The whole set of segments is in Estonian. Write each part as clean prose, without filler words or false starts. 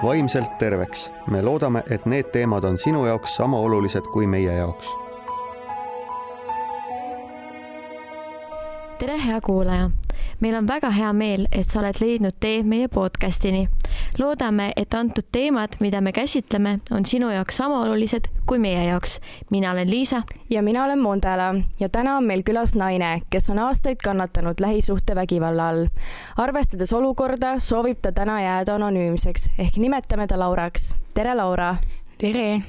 vaimselt terveks. Me loodame, et need teemad on sinu jaoks sama olulised kui meie jaoks. Tere, hea kuulaja! Meil on väga hea meel, et sa oled leidnud tee meie podcastini. Loodame, et antud teemad, mida me käsitleme, on sinu jaoks sama olulised kui meie jaoks. Mina olen Liisa. Ja mina olen Mondela ja täna on meil külas naine, kes on aastaid kannatanud lähisuhtevägivalla all. Arvestades olukorda, soovib ta täna jääda anonüümseks, ehk nimetame ta Lauraks. Tere, Laura! Tere!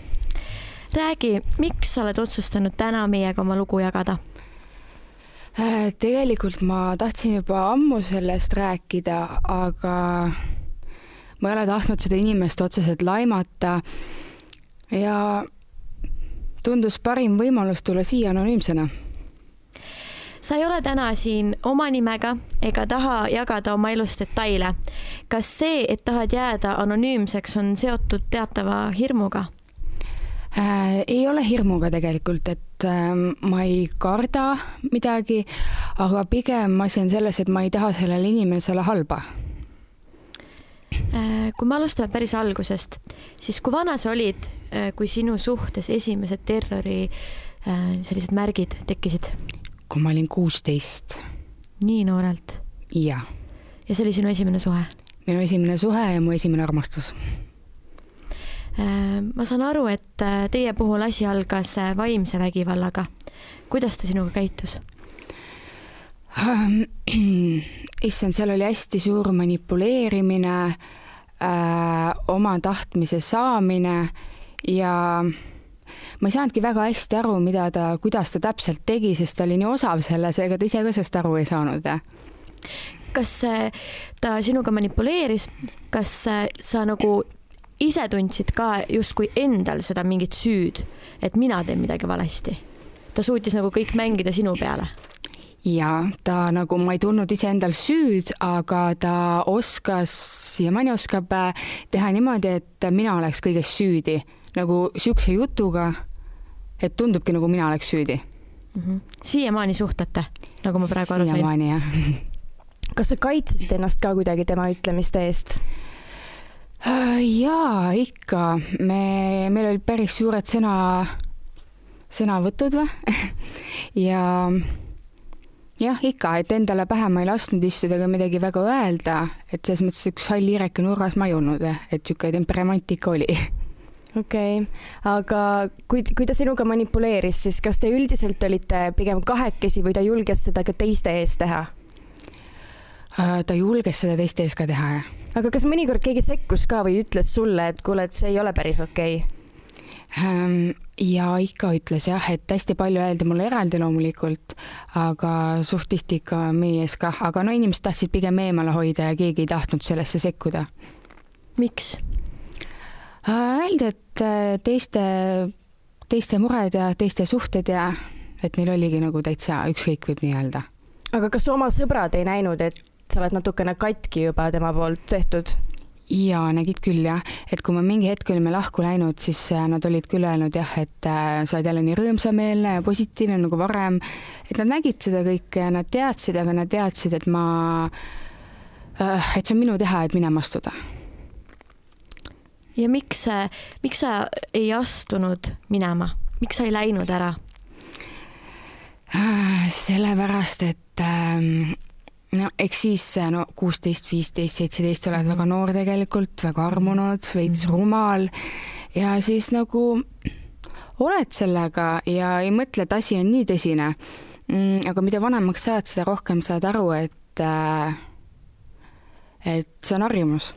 Räägi, miks sa oled otsustanud täna meiega oma lugu jagada? Tegelikult ma tahtsin juba ammu sellest rääkida, aga ma ei ole tahtnud seda inimest otseselt laimata ja tundus parim võimalus tulla siia anonüümsena. Sa ei ole täna siin oma nimega ega taha jagada oma elust detaile. Kas see, et tahad jääda anonüümseks, on seotud teatava hirmuga? Ei ole hirmuga tegelikult, et ma ei karda midagi, aga pigem asi on selles, et ma ei taha sellele inimesele halba. Kui me alustame päris algusest, siis kui vana sa olid, kui sinu suhtes esimesed terrori sellised märgid tekkisid? Kui ma olin 16. Nii noorelt? Ja. Ja see oli sinu esimene suhe? Minu esimene suhe ja mu esimene armastus. Ma saan aru, et teie puhul asi algas vaimse vägivallaga. Kuidas ta sinuga käitus? Issand, seal oli hästi suur manipuleerimine, oma tahtmise saamine ja ma ei saanudki väga hästi aru, kuidas ta täpselt tegi, sest ta oli nii osav selles, ega ta ise ka sellest aru ei saanud. Kas ta sinuga manipuleeris? Kas sa nagu ise tundsid ka justkui endal seda mingit süüd, et mina teen midagi valesti? Ta suutis nagu kõik mängida sinu peale? Ja, ta nagu, ma ei tundnud ise endal süüd, aga ta oskas ja mõni oskab teha niimoodi, et mina oleks kõigest süüdi. Nagu sükse jutuga, et tundubki nagu mina oleks süüdi. Siiamaani suhtate, nagu ma praegu aru sain? Siiamaani, jah. Kas sa kaitsesid ennast ka kuidagi tema ütlemiste eest? Jaa, ikka. Meil oli päris suured sõnavõtud või? Ja ikka, et endale pähe ma ei lasknud istuda ega midagi väga öelda, et selles mõttes üks hall hiireke nurgas ma ei olnud, et siuke temperamentika oli. Okei, aga kui ta sinuga manipuleeris, siis kas te üldiselt olite pigem kahekesi või ta julges seda ka teiste ees teha? Ta julges seda teiste ees ka teha, jah. Aga kas mõnikord keegi sekkus ka või ütles sulle, et kuule, et see ei ole päris okei? Ja ikka ütles jah, et hästi palju öeldi mulle eraldi loomulikult, aga suht tihti ikka meie ees ka. Aga no inimesed tahtsid pigem eemale hoida ja keegi ei tahtnud sellesse sekkuda. Miks? Öeldi, et teiste mured ja teiste suhted ja et neil oligi nagu täitsa ükskõik võib nii öelda. Aga kas oma sõbrad ei näinud, et sa oled natukene katki juba tema poolt tehtud? Ja, nägid küll jah, et kui ma mingi hetk olime lahku läinud, siis nad olid küll öelnud jah, et sa oled jälle nii rõõmsameelne ja positiivne nagu varem, et nad nägid seda kõike ja nad teadsid, aga nad teadsid, et see on minu teha, et minema astuda. Ja miks sa ei astunud minema? Miks sa ei läinud ära? Sellepärast, et eks siis 16, 15, 17 oled väga noor tegelikult, väga armunud, veits rumal ja siis nagu oled sellega ja ei mõtle, et asi on nii tõsine. Aga mida vanemaks saad, seda rohkem saad aru, et see on harjumus.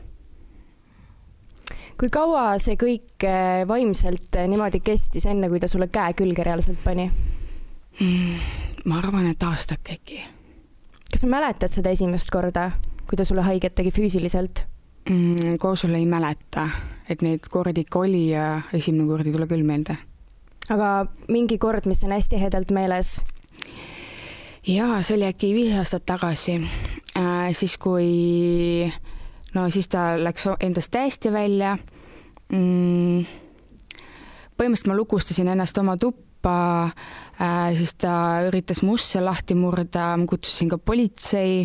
Kui kaua see kõik vaimselt niimoodi kestis enne, kui ta sulle käe külge reaalselt pani? Ma arvan, et aastak äkki. Kas sa mäletad seda esimest korda, kui ta sulle haiget tegi füüsiliselt? Koos sulle ei mäleta, et neid kordi ikka oli ja esimene kord ei tule küll meelde. Aga mingi kord, mis on hästi hedelt meeles? Jaa, see oli äkki 5 aastat tagasi. Siis kui siis ta läks endast täiesti välja. Põhimõtteliselt ma lukustasin ennast oma tuppa, siis ta üritas musse lahti murda, ma kutsusin ka politsei,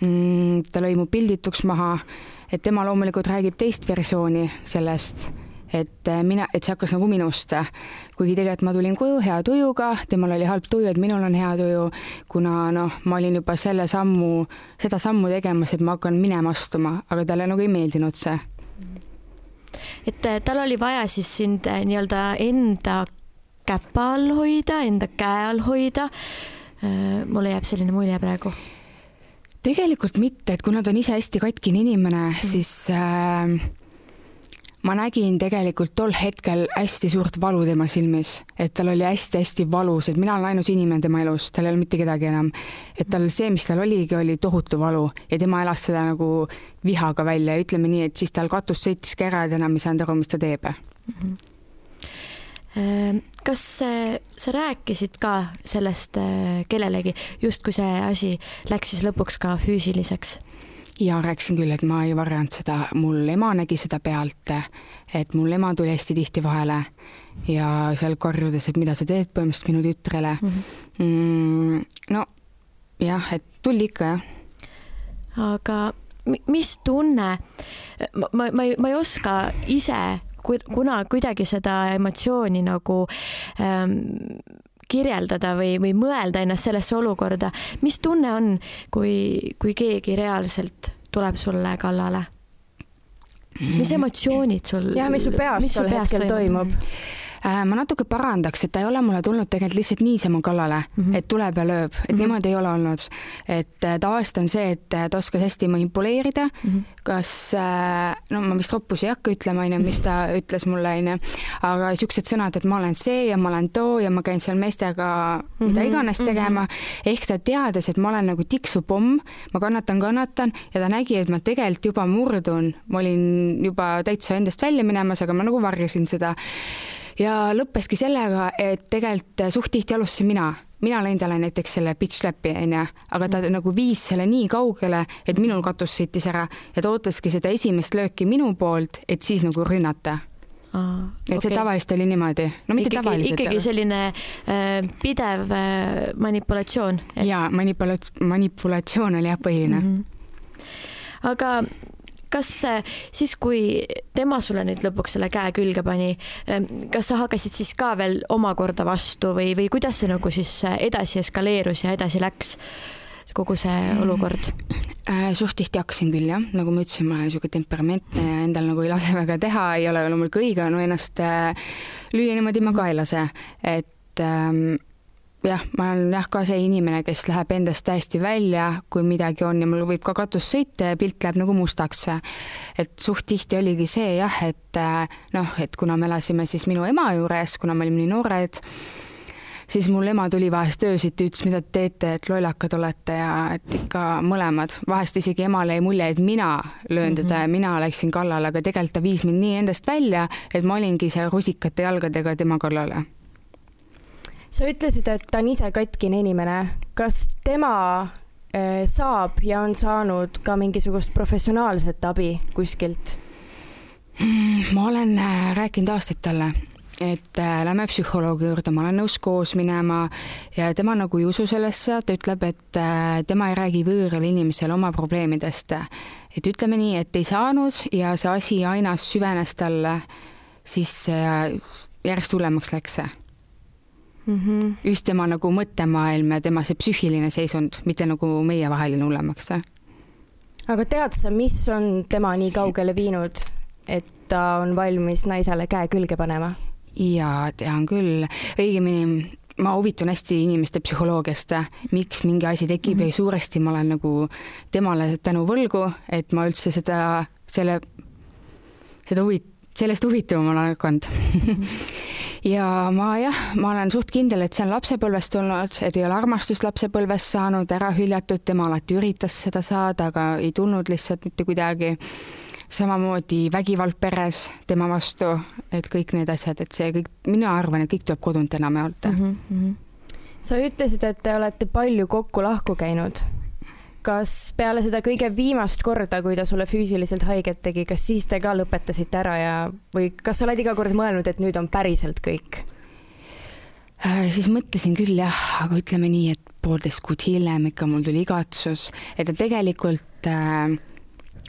ta lõi mu pildituks maha, et tema loomulikult räägib teist versiooni sellest, et see hakkas nagu minust, kuigi tegelikult ma tulin koju hea tujuga, temal oli halb tuju, et minul on hea tuju, kuna ma olin juba seda sammu tegemas, et ma hakkan minema astuma, aga talle nagu ei meeldinud see. Et tal oli vaja siis sind nii-öelda enda käpa all hoida, enda käe all hoida. Mulle jääb selline mulje praegu. Tegelikult mitte, et kuna ta on ise hästi katkine inimene, siis ma nägin tegelikult tol hetkel hästi suurt valu tema silmis, et tal oli hästi-hästi valus, et mina olen ainus inimene tema elus, tal ei ole mitte kedagi enam. Et tal see, mis tal oligi, oli tohutu valu ja tema elas seda nagu vihaga välja ja ütleme nii, et siis tal katus sõitiski ära ja enam ei saanud aru, mis ta teeb. Kas sa rääkisid ka sellest kellelegi, just kui see asi läks siis lõpuks ka füüsiliseks? Ja rääkisin küll, et ma ei varjanud seda, mul ema nägi seda pealt, et mul ema tuli hästi tihti vahele ja seal karjudes, et mida sa teed põhimõtteliselt minu tütrele. No jah, et tuli ikka jah. Aga mis tunne, ma ei oska ise kuna kuidagi seda emotsiooni nagu kirjeldada või mõelda ennast sellesse olukorda. Mis tunne on, kui keegi reaalselt tuleb sulle kallale? Mis emotsioonid sul? Ja, mis su peas tol hetkel toimub? Ma natuke parandaks, et ta ei ole mulle tulnud tegelikult lihtsalt niisama kallale, et tuleb ja lööb, et niimoodi ei ole olnud. Et tavaliselt on see, et ta oskas hästi manipuleerida, kas, ma vist roppus ei hakka ütlema, mis ta ütles mulle, aga siuksed sõnad, et ma olen see ja ma olen too ja ma käin seal meestega mida iganes tegema, ehk ta teades, et ma olen nagu tiksupomm, ma kannatan ja ta nägi, et ma tegelikult juba murdun, ma olin juba täitsa endast välja minemas, aga ma nagu varjasin seda. Ja lõppeski sellega, et tegelikult suht tihti alustasin mina lõin talle näiteks selle bitch slap'i, aga ta nagu viis selle nii kaugele, et minul katus sõitis ära ja ta ootaski seda esimest lööki minu poolt, et siis nagu rünnata. Et see tavaliselt oli niimoodi. No mitte tavaliselt. Ikkagi selline pidev manipulatsioon. Ja, manipulatsioon oli jah põhiline. Aga kas siis, kui tema sulle nüüd lõpuks selle käe külge pani, kas sa hakkasid siis ka veel omakorda vastu või kuidas see nagu siis edasi eskaleerus ja edasi läks kogu see olukord? Suht tihti hakkasin küll, jah. Nagu ma ütlesin, ma olen niisugune temperamentne ja endal nagu ei lase väga teha, ei ole loomulikult õige, ennast lüüa niimoodi ma ka ei lase. Et jah, ma olen ka see inimene, kes läheb endast täiesti välja, kui midagi on ja mul võib ka katus sõita ja pilt läheb nagu mustaks. Et suht tihti oligi see jah, et kuna me elasime siis minu ema juures, kuna me olime nii noored, siis mul ema tuli vahest öösiti, ütles, mida te teete, et lollakad olete ja et ikka mõlemad. Vahest isegi emale ei mulje, et mina löön teda ja mina läksin kallale, aga tegelikult ta viis mind nii endast välja, et ma olingi seal rusikate jalgadega tema kallale. Sa ütlesid, et ta on ise katkine inimene. Kas tema saab ja on saanud ka mingisugust professionaalset abi kuskilt? Ma olen rääkinud aastaid talle, et lähme psühholoogi juurde, ma olen nõus koos minema ja tema nagu ei usu sellesse, ta ütleb, et tema ei räägi võõral inimesel oma probleemidest. Et ütleme nii, et ei saanud ja see asi aina süvenes talle, siis järjest hullemaks läks see. Just tema nagu mõttemaailm ja tema see psüühiline seisund, mitte nagu meie vaheline hullemaks. Aga tead sa, mis on tema nii kaugele viinud, et ta on valmis naisele käe külge panema? Ja tean küll. Õigemini ma huvitun hästi inimeste psühholoogiast, miks mingi asi tekib ja suuresti ma olen nagu temale tänu võlgu, et ma üldse sellest huvituma olen hakanud. Ja ma olen suht kindel, et see on lapsepõlvest tulnud, et ei ole armastust lapsepõlvest saanud, ära hüljatud, tema alati üritas seda saada, aga ei tulnud lihtsalt mitte kuidagi. Samamoodi vägivald peres tema vastu, et kõik need asjad, et see kõik, mina arvan, et kõik tuleb kodunt enam jaolta. Sa ütlesid, et te olete palju kokku lahku käinud. Kas peale seda kõige viimast korda, kui ta sulle füüsiliselt haiget tegi, kas siis te ka lõpetasite ära või kas sa oled iga kord mõelnud, et nüüd on päriselt kõik? Siis mõtlesin küll jah, aga ütleme nii, et 1,5 kuud hiljem ikka mul tuli igatsus, et ta tegelikult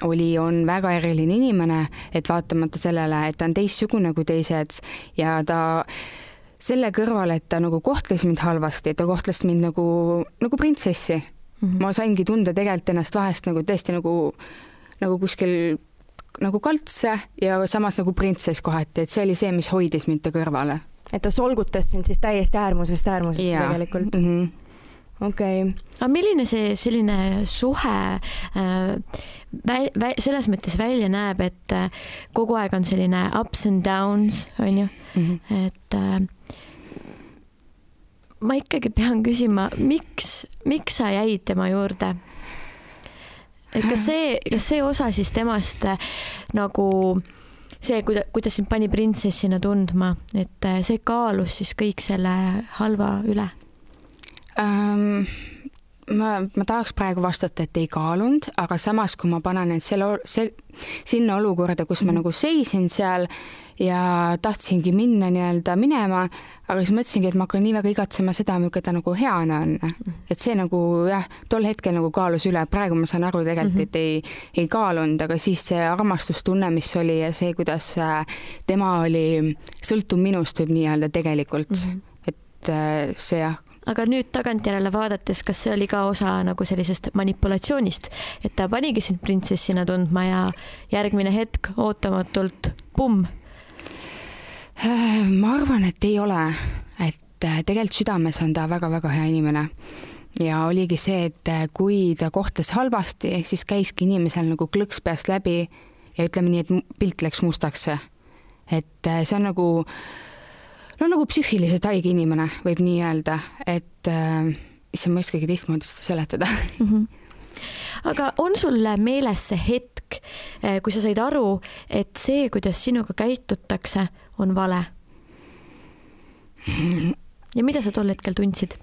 on väga eriline inimene, et vaatamata sellele, et ta on teistsugune kui teised ja ta selle kõrval, et ta nagu kohtles mind halvasti, ta kohtles mind nagu printsessi. Ma saingi tunda tegelikult ennast vahest nagu tõesti nagu kuskil nagu kaltse ja samas nagu printsess kohati, et see oli see, mis hoidis mind ta kõrvale. Et ta solgutas sind siis täiesti äärmusest tegelikult. Okei. Aga milline see selline suhe selles mõttes välja näeb, et kogu aeg on selline ups and downs, on ju? Et ma ikkagi pean küsima, miks sa jäid tema juurde? Et kas see osa siis temast nagu see, kuidas sind pani printsessina tundma, et see kaalus siis kõik selle halva üle? Ma tahaks praegu vastata, et ei kaalunud, aga samas, kui ma panen end sinna olukorda, kus ma nagu seisin seal ja tahtsingi minna minema, aga siis mõtlesingi, et ma hakkan nii väga igatsema seda, millega ta nagu heana on. Et see nagu jah, tol hetkel nagu kaalus üle, praegu ma saan aru tegelikult, et ei kaalunud, aga siis see armastustunne, mis oli ja see, kuidas tema oli sõltuv minust võib nii-öelda tegelikult, et see jah. Aga nüüd tagantjärele vaadates, kas see oli ka osa nagu sellisest manipulatsioonist, et ta panigi sind printsessina tundma ja järgmine hetk ootamatult pumm? Ma arvan, et ei ole, et tegelikult südames on ta väga-väga hea inimene ja oligi see, et kui ta kohtles halvasti, siis käiski inimesel nagu klõks peast läbi ja ütleme nii, et pilt läks mustaks. Et see on nagu psüühiliselt haige inimene, võib nii öelda, et issand, ma ei oskagi teistmoodi seda seletada. Aga on sul meeles see hetk, kui sa said aru, et see, kuidas sinuga käitutakse, on vale? Ja mida sa tol hetkel tundsid?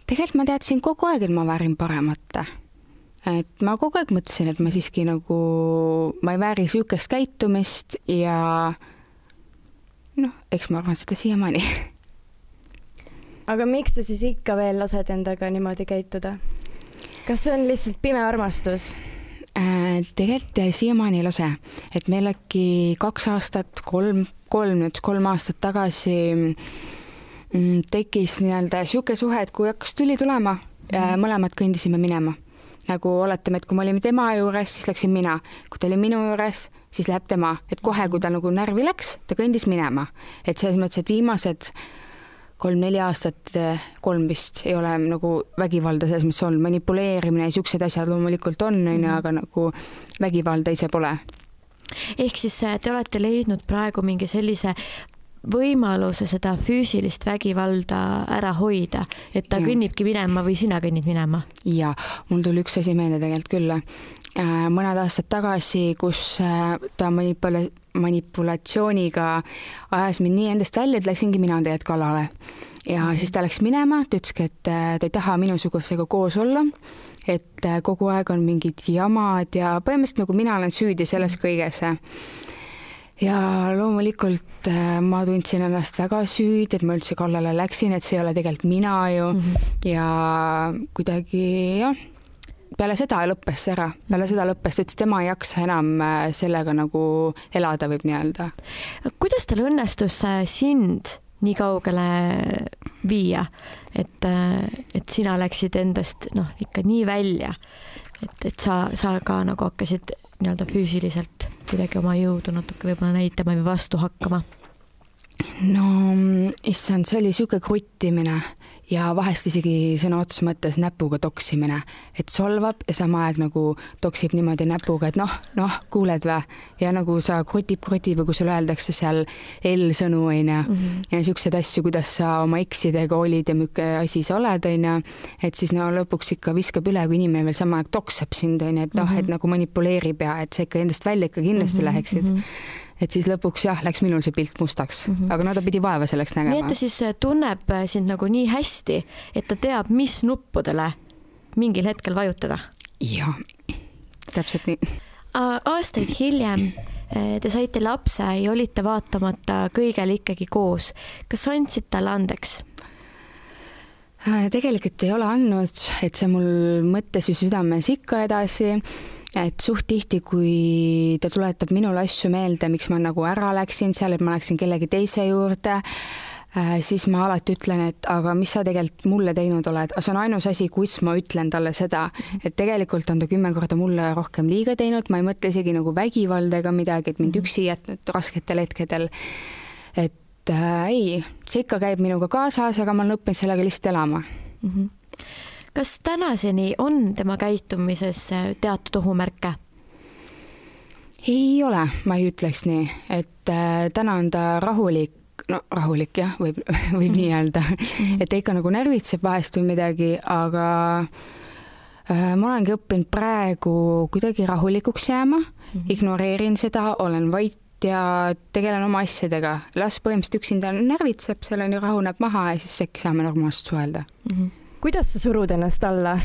Tegelikult ma teadsin kogu aeg, et ma väärin paremat. Et ma kogu aeg mõtlesin, et ma siiski nagu, ma ei vääri sihukest käitumist ja eks ma arvan seda siiamaani. Aga miks sa siis ikka veel lased endaga niimoodi käituda? Kas see on lihtsalt pime armastus? Tegelikult siiamaani ei lase. Et meil äkki 2 aastat, 3 aastat tagasi tekkis nii-öelda siuke suhe, et kui hakkas tüli tulema, mõlemad kõndisime minema. Nagu oletame, et kui ma olin tema juures, siis läksin mina. Kui ta oli minu juures, siis läheb tema. Et kohe, kui ta nagu närvi läks, ta kõndis minema. Et selles mõttes, et viimased 3-4 aastat, 3 vist ei ole nagu vägivalda selles mõttes olnud. Manipuleerimine ja siuksed asjad loomulikult on, aga nagu vägivalda ise pole. Ehk siis te olete leidnud praegu mingi sellise võimaluse seda füüsilist vägivalda ära hoida, et ta kõnnibki minema või sina kõnnid minema? Ja, mul tuli üks asi meelde tegelikult küll. Mõned aastad tagasi, kus ta manipulatsiooniga ajas mind nii endast välja, et läksingi mina tegelikult kallale. Ja siis ta läks minema, ta ütleski, et ta ei taha minusugusega koos olla, et kogu aeg on mingid jamad ja põhimõtteliselt nagu mina olen süüdi selles kõiges. Ja loomulikult ma tundsin ennast väga süüd, et ma üldse kallale läksin, et see ei ole tegelikult mina ju ja kuidagi jah, peale seda lõppes see ära. Peale seda lõppes, et tema ei jaksa enam sellega nagu elada võib nii-öelda. Kuidas tal õnnestus sind nii kaugele viia, et sina läksid endast ikka nii välja, et sa ka nagu hakkasid nii-öelda füüsiliselt kuidagi oma jõudu natuke võib-olla näitama või vastu hakkama? No, issand, see oli siuke kruttimine ja vahest isegi sõna otseses mõttes näpuga toksimine, et solvab ja sama aeg nagu toksib niimoodi näpuga, et noh, kuuled vä? Ja nagu sa krutib või kui sulle öeldakse seal L-sõnu ja siuksed asju, kuidas sa oma eksidega olid ja mükke asi sa oled, et siis lõpuks ikka viskab üle, kui inimene veel sama aeg toksab sind, et et nagu manipuleerib ja et sa ikka endast välja ikka kindlasti läheksid. Et siis lõpuks jah, läks minul see pilt mustaks, aga ta pidi vaeva selleks nägema. Nii et ta siis tunneb sind nagu nii hästi, et ta teab, mis nuppudele mingil hetkel vajutada? Jah, täpselt nii. Aastaid hiljem te saite lapse ja olite vaatamata kõigele ikkagi koos. Kas andsid talle andeks? Tegelikult ei ole andnud, et see mul mõttes või südames ikka edasi, et suht tihti, kui ta tuletab minule asju meelde, miks ma nagu ära läksin seal, et ma läksin kellegi teise juurde, siis ma alati ütlen, et aga mis sa tegelikult mulle teinud oled, aga see on ainus asi, kus ma ütlen talle seda, et tegelikult on ta 10 korda mulle rohkem liiga teinud, ma ei mõtle isegi nagu vägivalda ega midagi, et mind üksi jätnud rasketel hetkedel, et ei, see ikka käib minuga kaasas, aga ma olen õppinud sellega lihtsalt elama. Kas tänaseni on tema käitumises teatud ohumärke? Ei ole, ma ei ütleks nii, et täna on ta rahulik jah, võib nii öelda, et ta ikka nagu närvitseb vahest või midagi, aga ma olengi õppinud praegu kuidagi rahulikuks jääma, ignoreerin seda, olen vait ja tegelen oma asjadega. Las põhimõtteliselt üksinda närvitseb, selleni rahuneb maha ja siis äkki saame normaalselt suhelda. Kuidas sa surud ennast alla?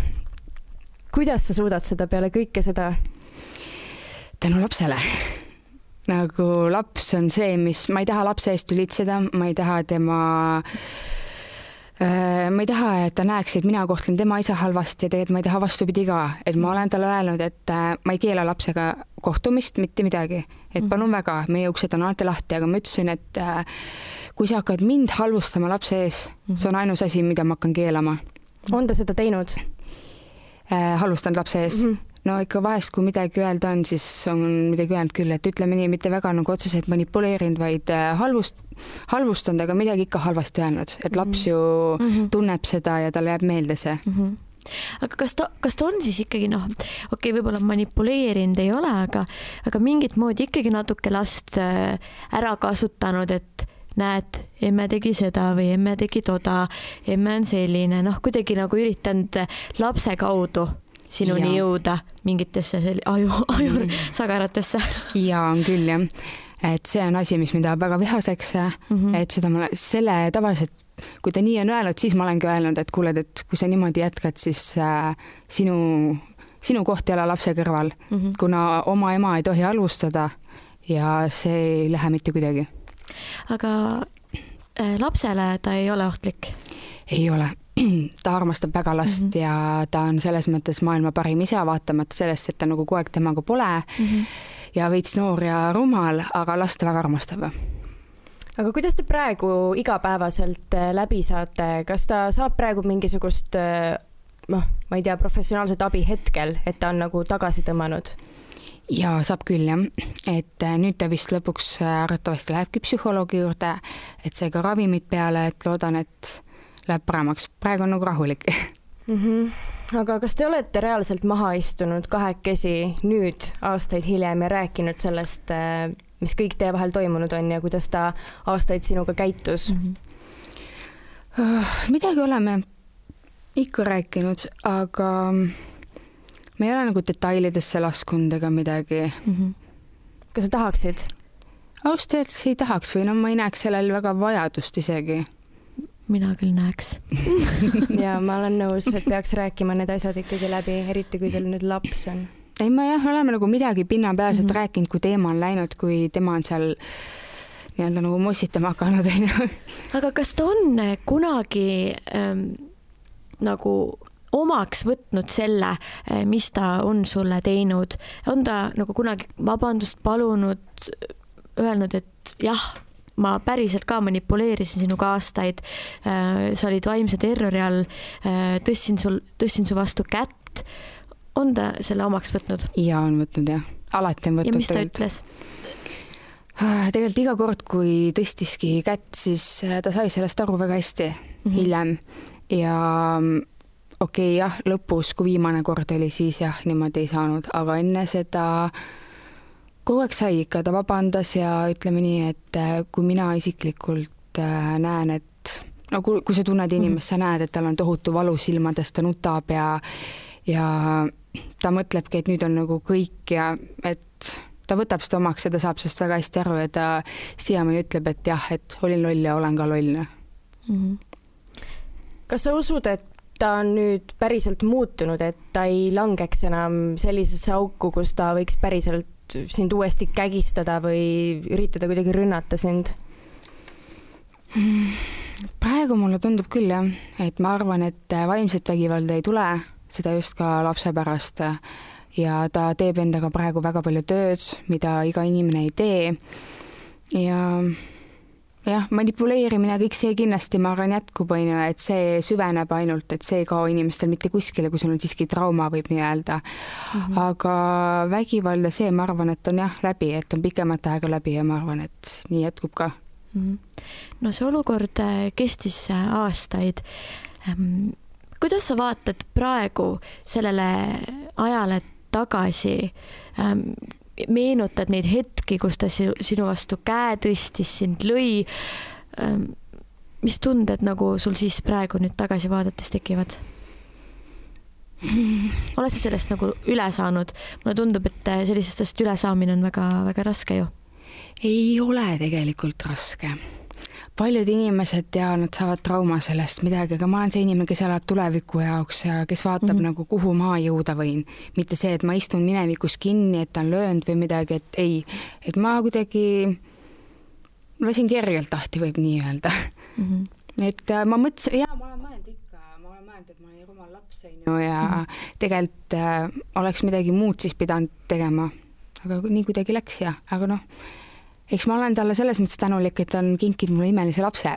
Kuidas sa suudad seda peale kõike seda? Tänu lapsele. Nagu laps on see, mis ma ei taha lapse eest ülitseda, ma ei taha, et ta näeks, et mina kohtlen tema isa halvasti ja tegelikult ma ei taha vastupidi ka, et ma olen talle öelnud, et ma ei keela lapsega kohtumist, mitte midagi, et palun väga, meie uksed on alati lahti, aga ma ütlesin, et kui sa hakkad mind halvustama lapse ees, see on ainus asi, mida ma hakkan keelama. On ta seda teinud? Halvustanud lapse ees. No ikka vahest, kui midagi öelda on, siis on midagi öelnud küll, et ütleme nii, mitte väga nagu otseselt manipuleerinud, vaid halvustanud, aga midagi ikka halvasti öelnud, et laps ju tunneb seda ja talle jääb meelde see. Aga kas ta on siis ikkagi võib-olla manipuleerinud ei ole, aga mingit moodi ikkagi natuke last ära kasutanud, et näed, emme tegi seda või emme tegi toda, emme on selline, kuidagi nagu üritanud lapse kaudu sinuni jõuda mingitesse aju sagaratesse. Ja on küll jah, et see on asi, mis mind tahab väga vihaseks, et selle tavaliselt, kui ta nii on öelnud, siis ma olengi öelnud, et kuuled, et kui sa niimoodi jätkad, siis sinu koht ei ole lapse kõrval, kuna oma ema ei tohi halvustada ja see ei lähe mitte kuidagi. Aga lapsele ta ei ole ohtlik? Ei ole. Ta armastab väga last ja ta on selles mõttes maailma parim isa, vaatamata sellest, et ta nagu kogu aeg temaga pole ja veits noor ja rumal, aga last väga armastab. Aga kuidas te praegu igapäevaselt läbi saate? Kas ta saab praegu mingisugust, ma ei tea, professionaalset abi hetkel, et ta on nagu tagasi tõmmanud? Ja saab küll jah, et nüüd ta vist lõpuks arvatavasti lähebki psühholoogi juurde, et see ka ravimid peale, et loodan, et läheb paremaks. Praegu on nagu rahulik. Aga kas te olete reaalselt maha istunud kahekesi nüüd aastaid hiljem ja rääkinud sellest, mis kõik teie vahel toimunud on ja kuidas ta aastaid sinuga käitus? Midagi oleme ikka rääkinud, aga me ei ole nagu detailidesse laskunud ega midagi. Kas sa tahaksid? Ausalt ei tahaks või ma ei näeks sellel väga vajadust isegi. Mina küll näeks. Ja ma olen nõus, et peaks rääkima need asjad ikkagi läbi, eriti kui teil nüüd laps on. Ei, me oleme nagu midagi pinnapealselt rääkinud, kui teema on läinud, kui tema on seal nii-öelda nagu mossitama hakanud. Aga kas ta on kunagi nagu omaks võtnud selle, mis ta on sulle teinud? On ta nagu kunagi vabandust palunud, öelnud, et jah, ma päriselt ka manipuleerisin sinuga aastaid, sa olid vaimse terrori all, tõstin su vastu kätt. On ta selle omaks võtnud? Ja on võtnud jah, alati on võtnud. Ja mis ta ütles? Tegelikult iga kord, kui tõstiski kätt, siis ta sai sellest aru väga hästi hiljem ja okei, jah, lõpus, kui viimane kord oli, siis jah, niimoodi ei saanud, aga enne seda kogu aeg sai ikka, ta vabandas ja ütleme nii, et kui mina isiklikult näen, et kui sa tunned inimest, sa näed, et tal on tohutu valu silmadest, ta nutab ja ta mõtlebki, et nüüd on nagu kõik ja et ta võtab seda omaks ja ta saab sellest väga hästi aru ja ta siiamaani ütleb, et jah, et olin loll ja olen ka loll. Kas sa usud, et ta on nüüd päriselt muutunud, et ta ei langeks enam sellisesse auku, kus ta võiks päriselt sind uuesti kägistada või üritada kuidagi rünnata sind? praegu mulle tundub küll jah, et ma arvan, et vaimset vägivalda ei tule, seda just ka lapse pärast ja ta teeb endaga praegu väga palju tööd, mida iga inimene ei tee ja jah, manipuleerimine, kõik see kindlasti ma arvan jätkub, et see süveneb ainult, et see ei kao inimestel mitte kuskile, kui sul on siiski trauma, võib nii öelda. Aga vägivalda see, ma arvan, et on jah läbi, et on pikemat aega läbi ja ma arvan, et nii jätkub ka. No see olukord kestis aastaid. Kuidas sa vaatad praegu sellele ajale tagasi? Meenutad neid hetki, kus ta sinu vastu käe tõstis, sind lõi. Mis tunded nagu sul siis praegu nüüd tagasi vaadates tekivad? Oled sa sellest nagu üle saanud? Mulle tundub, et sellisest üle saamine on väga, väga raske ju. Ei ole tegelikult raske. Paljud inimesed nad saavad trauma sellest midagi, aga ma olen see inimene, kes elab tuleviku jaoks ja kes vaatab nagu kuhu ma jõuda võin. Mitte see, et ma istun minevikus kinni, et ta on löönud või midagi, et ei. Et ma kuidagi lasin kergelt lahti, võib nii öelda. Et ma mõtlesin, ma olen mõelnud ikka, et ma olen rumal laps ja tegelikult oleks midagi muud siis pidanud tegema. Aga nii kuidagi läks aga eks ma olen talle selles mõttes tänulik, et ta on kinkinud mulle imelise lapse.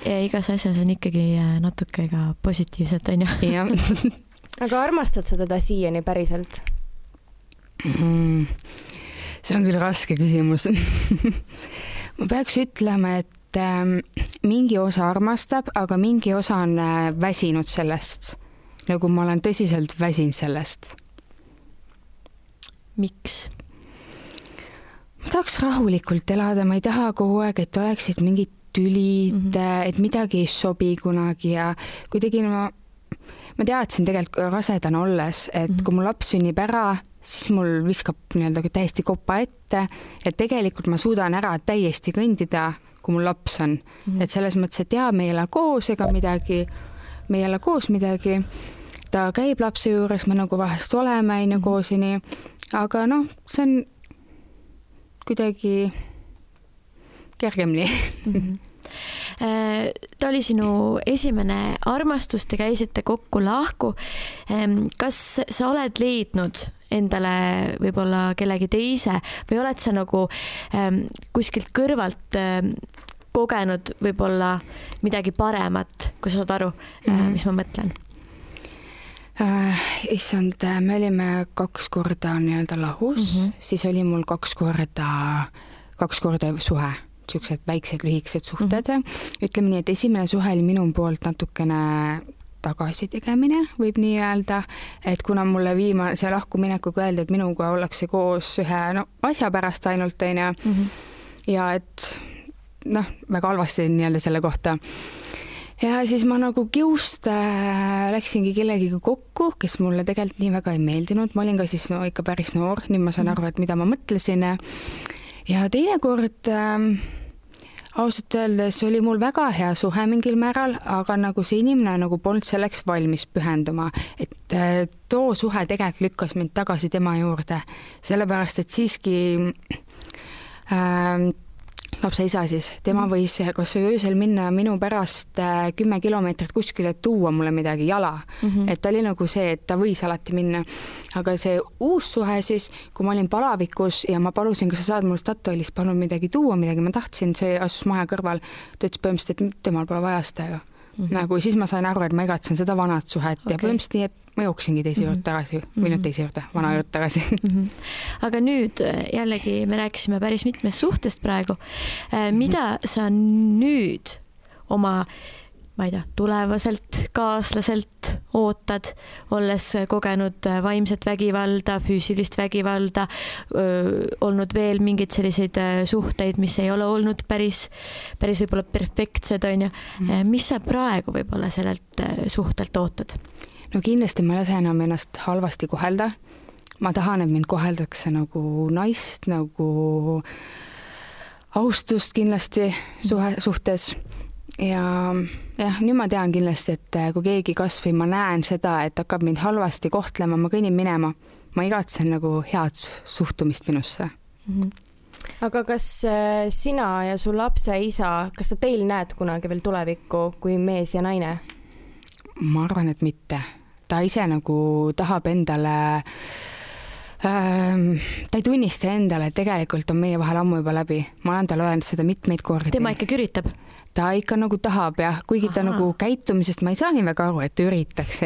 Ja igas asjas on ikkagi natuke ka positiivset, on ju? Aga armastad sa teda siiani päriselt? See on küll raske küsimus. Ma peaks ütlema, et mingi osa armastab, aga mingi osa on väsinud sellest. Nagu ma olen tõsiselt väsinud sellest. Miks? Ma tahaks rahulikult elada, ma ei taha kogu aeg, et oleksid mingid tülid, et midagi ei sobi kunagi ja kuidagi ma teadsin tegelikult rasedana olles, et kui mul laps sünnib ära, siis mul viskab täiesti kopa ette, et tegelikult ma suudan ära täiesti kõndida, kui mul laps on. Et selles mõttes, et me ei ela koos ega midagi, me ei ela koos midagi, ta käib lapse juures, me nagu vahest oleme koosini, aga see on kuidagi kergemini. Ta oli sinu esimene armastus, te käisite kokku lahku. Kas sa oled leidnud endale võib-olla kellegi teise või oled sa nagu kuskilt kõrvalt kogenud võib-olla midagi paremat, kui sa saad aru, mis ma mõtlen? Issand, me olime 2 korda lahus, siis oli mul 2 korda suhe, siuksed väiksed lühikesed suhted. Ütleme nii, et esimene suhe oli minu poolt natukene tagasitegemine, võib nii öelda, et kuna mulle see lahkuminekuga öeldi, et minuga ollakse koos ühe asja pärast ainult ja et väga halvasti selle kohta. Ja siis ma nagu kiust läksingi kellegiga kokku, kes mulle tegelikult nii väga ei meeldinud. Ma olin ka siis ikka päris noor, nüüd ma saan aru, et mida ma mõtlesin. Ja teine kord ausalt öeldes oli mul väga hea suhe mingil määral, aga nagu see inimene nagu polnud selleks valmis pühenduma. Et too suhe tegelikult lükkas mind tagasi tema juurde, sellepärast, et siiski lapse isa siis, tema võis kas või öösel minna minu pärast 10 kilomeetrit kuskile tuua mulle midagi jala. Et ta oli nagu see, et ta võis alati minna. Aga see uus suhe siis, kui ma olin palavikus ja ma palusin, kas sa saad mul Statoilist palun midagi tuua, midagi ma tahtsin, see asus maja kõrval, ta ütles põhimõtteliselt, et temal pole vaja seda ju. Nagu siis ma sain aru, et ma igatsen seda vanat suhet ja põhimõtteliselt nii, et ma jooksingi teise juurde tagasi, või nüüd teise juurde, vana juurde tagasi. Aga nüüd jällegi me rääkisime päris mitmest suhtest praegu. Mida sa nüüd oma, ma ei tea, tulevaselt kaaslaselt ootad, olles kogenud vaimset vägivalda, füüsilist vägivalda, olnud veel mingeid selliseid suhteid, mis ei ole olnud päris võib-olla perfektsed, on ju. Mis sa praegu võib-olla sellelt suhtelt ootad? No kindlasti ma ei lase enam ennast halvasti kohelda. Ma tahan, et mind koheldakse nagu naist, nagu austust kindlasti suhtes. Ja nüüd ma tean kindlasti, et kui keegi kasvõi ma näen seda, et hakkab mind halvasti kohtlema, ma kõnnin minema. Ma igatsen nagu head suhtumist minusse. aga kas sina ja su lapse isa, kas sa teil näed kunagi veel tulevikku kui mees ja naine? Ma arvan, et mitte. Ta ise nagu tahab endale, ta ei tunnista endale, et tegelikult on meie vahel ammu juba läbi. Ma olen talle öelnud seda mitmeid kordi. Tema ikkagi üritab? Ta ikka nagu tahab jah, kuigi ta nagu käitumisest ma ei saa nii väga aru, et ta üritaks,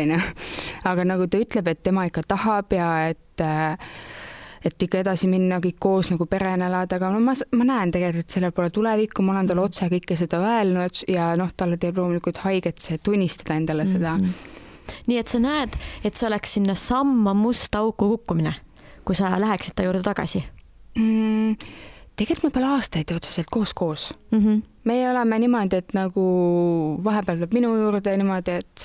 aga nagu ta ütleb, et tema ikka tahab ja et ikka edasi minna kõik koos nagu perena elada, aga ma näen tegelikult, et sellel pole tulevikku, ma olen talle otse kõike seda öelnud ja talle teeb loomulikult haiget see tunnistada endale seda. Nii et sa näed, et see oleks sinna samma musta auku kukkumine, kui sa läheksid ta juurde tagasi? Tegelikult me pole aastaid otseselt koos. Meie oleme niimoodi, et nagu vahepeal tuleb minu juurde niimoodi, et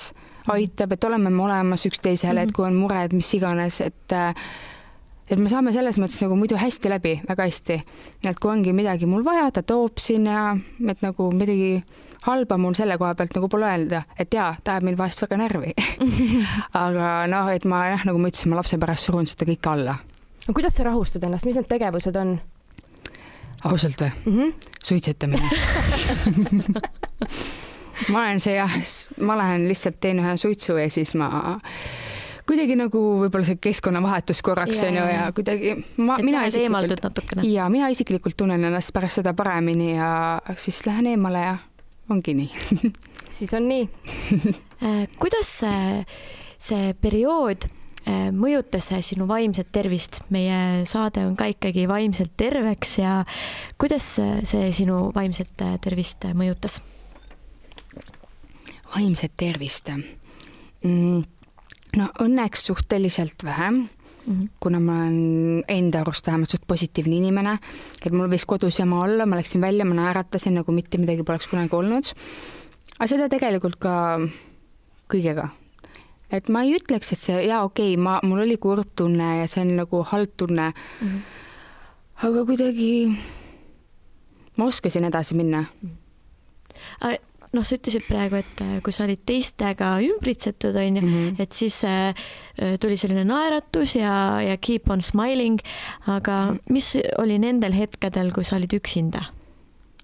aitab, et oleme me olemas üksteisele, et kui on mured, mis iganes, et me saame selles mõttes nagu muidu hästi läbi, väga hästi. Et kui ongi midagi mul vaja, ta toob sinna, et nagu midagi halba mul selle koha pealt nagu pole öelda, et jaa, ta ajab mind vahest väga närvi. Aga et ma nagu ma ütlesin, ma lapse pärast surun seda kõik alla. Kuidas sa rahustad ennast, mis need tegevused on? Ausalt või? Suitsetamine. Ma lähen lihtsalt teen ühe suitsu ja siis ma kuidagi nagu võib-olla see keskkonnavahetus korraks on ju ja kuidagi mina isiklikult tunnen ennast pärast seda paremini ja siis lähen eemale ja ongi nii. Siis on nii. Kuidas see periood mõjutas sinu vaimset tervist? Meie saade on ka ikkagi vaimselt terveks ja kuidas see sinu vaimset tervist mõjutas? Vaimset tervist? No õnneks suhteliselt vähem, kuna ma olen enda arust vähemalt suht positiivne inimene, et mul võis kodus jama olla, ma läksin välja, ma naeratasin, nagu mitte midagi poleks kunagi olnud. Aga seda tegelikult ka kõigega. Et ma ei ütleks, et see, mul oli kurb tunne ja see on nagu halb tunne, aga kuidagi ma oskasin edasi minna. Sa ütlesid praegu, et kui sa olid teistega ümbritsetud, et siis tuli selline naeratus ja keep on smiling, aga mis oli nendel hetkedel, kui sa olid üksinda?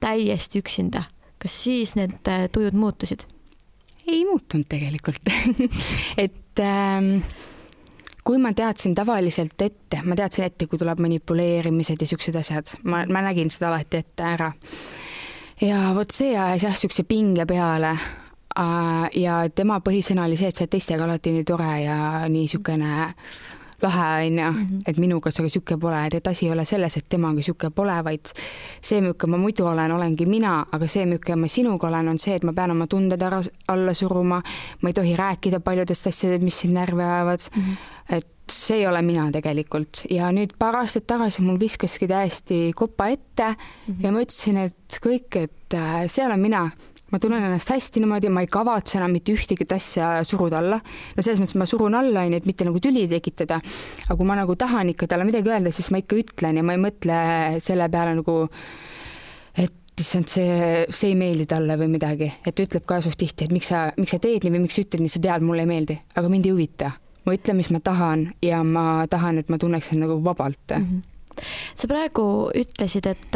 Täiesti üksinda. Kas siis need tujud muutusid? Ei muutunud tegelikult. Et kui ma teadsin tavaliselt ette, kui tuleb manipuleerimised ja siuksed asjad, ma nägin seda alati ette ära. Ja vot see ajas sükse pinge peale ja tema põhisõna oli see, et sa teistega alati nii tore ja nii sükene lahe on, et minuga see süke pole, et asi ei ole selles, et temaga süke pole, vaid see, milline ma muidu olengi mina, aga see, milline ma sinuga olen, on see, et ma pean oma tunded alla suruma, ma ei tohi rääkida paljudest asjadest, mis siin närve ajavad, et see ei ole mina tegelikult. Ja nüüd paar aastat tagasi mul viskaski täiesti kopa ette ja ma ütlesin, et kõik, et see olen mina. Ma tunnen ennast hästi niimoodi, ma ei kavatse enam mitte ühtegi asja suruda alla. No selles mõttes ma surun alla, et mitte nagu tüli tekitada. Aga kui ma nagu tahan ikka talle midagi öelda, siis ma ikka ütlen ja ma ei mõtle selle peale nagu, et see ei meeldi talle või midagi. Et ütleb ka suht tihti, et miks sa teed nii või miks ütled nii, sa tead, mulle ei meeldi. Aga mind ei huvita. Ma ütlen, mis ma tahan ja ma tahan, et ma tunneksin nagu vabalt. Sa praegu ütlesid, et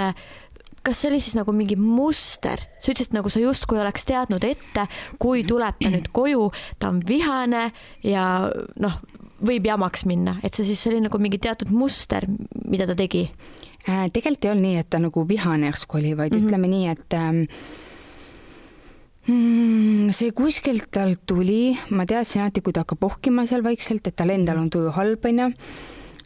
kas see oli siis nagu mingi muster? Sa ütlesid, nagu sa justkui oleks teadnud ette, kui tuleb ta nüüd koju, ta on vihane ja võib jamaks minna. Et see siis oli nagu mingi teatud muster, mida ta tegi? Tegelikult ei olnud nii, et ta nagu vihane järsku oli, vaid ütleme nii, et see kuskilt tal tuli, ma teadsin alati, kui ta hakkab ohkima seal vaikselt, et tal endal on tuju halb,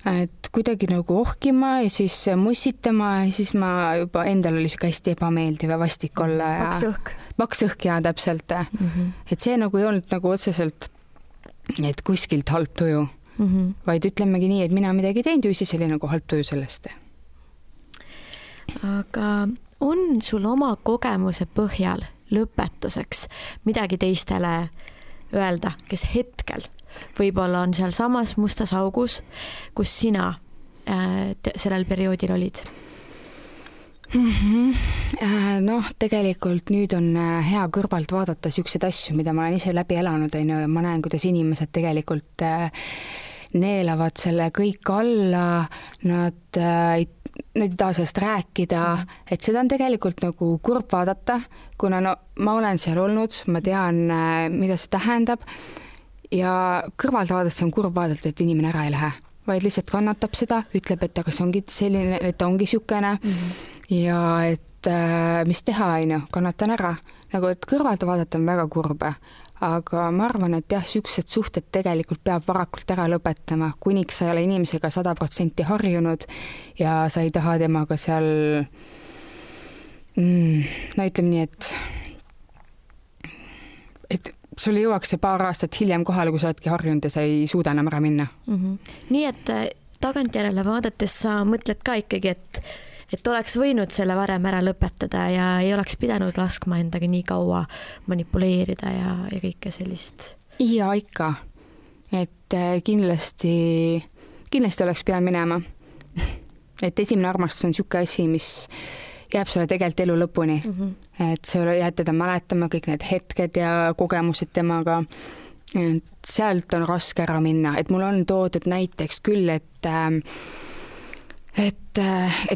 et kuidagi nagu ohkima ja siis mussitama ja siis ma juba endal oli siuke hästi ebameeldiv ja vastik olla. Paks õhk ja täpselt. Et see nagu ei olnud nagu otseselt, et kuskilt halb tuju, vaid ütlemegi nii, et mina midagi teinud ja siis oli nagu halb tuju sellest. Aga on sul oma kogemuse põhjal lõpetuseks midagi teistele öelda, kes hetkel võib-olla on seal samas mustas augus, kus sina sellel perioodil olid? Tegelikult nüüd on hea kõrvalt vaadata siukseid asju, mida ma olen ise läbi elanud, ja ma näen, kuidas inimesed tegelikult neelavad selle kõik alla, nad need ei taha sellest rääkida, et seda on tegelikult nagu kurb vaadata, kuna no ma olen seal olnud, ma tean, mida see tähendab ja kõrvalt vaadates on kurb vaadata, et inimene ära ei lähe, vaid lihtsalt kannatab seda, ütleb, et aga see ongi selline, et ongi siukene ja et mis teha, kannatan ära. Nagu, et kõrvalt vaadata on väga kurbe. Aga ma arvan, et jah, siuksed suhted tegelikult peab varakult ära lõpetama, kuniks sa ei ole inimesega 100% harjunud ja sa ei taha temaga seal no ütleme nii, et sul jõuaks see paar aastat hiljem kohale, kui sa oledki harjunud ja sa ei suuda enam ära minna. Nii et tagantjärele vaadates sa mõtled ka ikkagi, et oleks võinud selle varem ära lõpetada ja ei oleks pidanud laskma endaga nii kaua manipuleerida ja kõike sellist. Ja ikka, et kindlasti oleks pidanud minema. Et esimene armastus on siuke asi, mis jääb sulle tegelikult elu lõpuni. Et sa jääd teda mäletama kõik need hetked ja kogemused temaga. Et sealt on raske ära minna. Et mul on toodud näiteks küll, et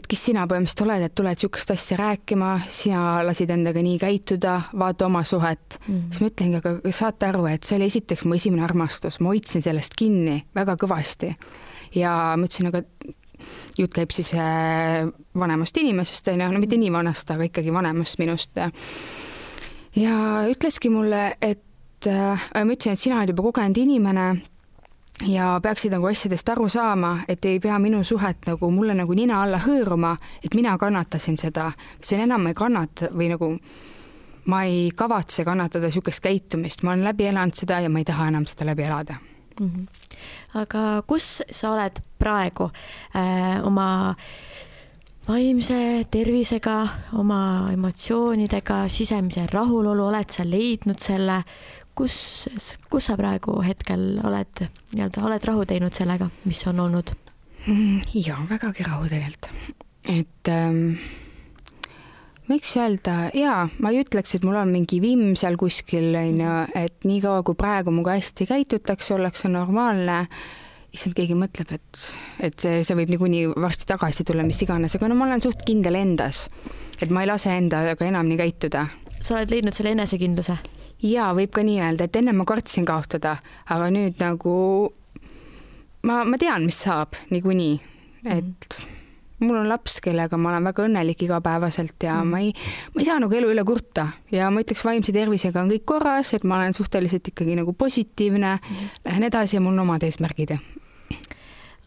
kes sina põhimõtteliselt oled, et tuled siukest asja rääkima, sina lasid endaga nii käituda, vaata oma suhet. Siis ma ütlengi, aga saate aru, et see oli esiteks mu esimene armastus, ma hoidsin sellest kinni väga kõvasti. Ja ma ütlesin, aga jutt käib siis vanemast inimesest, no mitte nii vanast, aga ikkagi vanemast minust. Ja ütleski mulle, et ma ütlesin, et sina oled juba kogenud inimene, ja peaksid nagu asjadest aru saama, et ei pea minu suhet nagu mulle nagu nina alla hõõruma, et mina kannatasin seda. See enam ei kannata või nagu ma ei kavatse kannatada siukest käitumist. Ma olen läbi elanud seda ja ma ei taha enam seda läbi elada. Aga kus sa oled praegu oma vaimse tervisega, oma emotsioonidega, sisemise rahulolu, oled sa leidnud selle? Kus sa praegu hetkel oled rahu teinud sellega, mis on olnud? Ja, vägagi rahu tegelikult. Et miks öelda, ma ei ütleks, et mul on mingi vimm seal kuskil, et nii kaua kui praegu muga hästi käitutakse, ollakse normaalne, issand keegi mõtleb, et see võib niikuinii varsti tagasi tulla, mis iganes, aga no ma olen suht kindel endas, et ma ei lase endaga enam nii käituda. Sa oled leidnud selle enesekindluse? Ja võib ka nii öelda, et enne ma kartsin kaotada, aga nüüd nagu ma tean, mis saab niikuinii, et mul on laps, kellega ma olen väga õnnelik igapäevaselt ja ma ei saa nagu elu üle kurta ja ma ütleks, vaimse tervisega on kõik korras, et ma olen suhteliselt ikkagi nagu positiivne, lähen edasi ja mul on omad eesmärgid.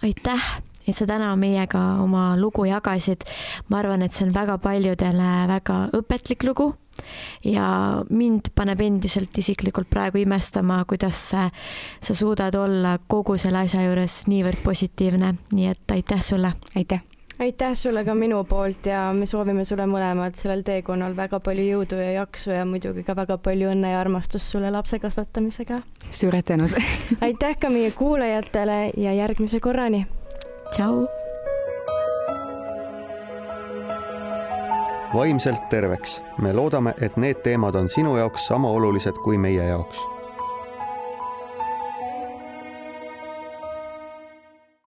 Aitäh, et sa täna meiega oma lugu jagasid. Ma arvan, et see on väga paljudele väga õpetlik lugu ja mind paneb endiselt isiklikult praegu imestama, kuidas sa suudad olla kogu selle asja juures niivõrd positiivne. Nii et aitäh sulle. Aitäh sulle ka minu poolt ja me soovime sulle mõlemad sellel teekonnal väga palju jõudu ja jaksu ja muidugi ka väga palju õnne ja armastust sulle lapse kasvatamisega. Suured tänud. Aitäh ka meie kuulajatele ja järgmise korrani. Tšau. Vaimselt terveks. Me loodame, et need teemad on sinu jaoks sama olulised kui meie jaoks.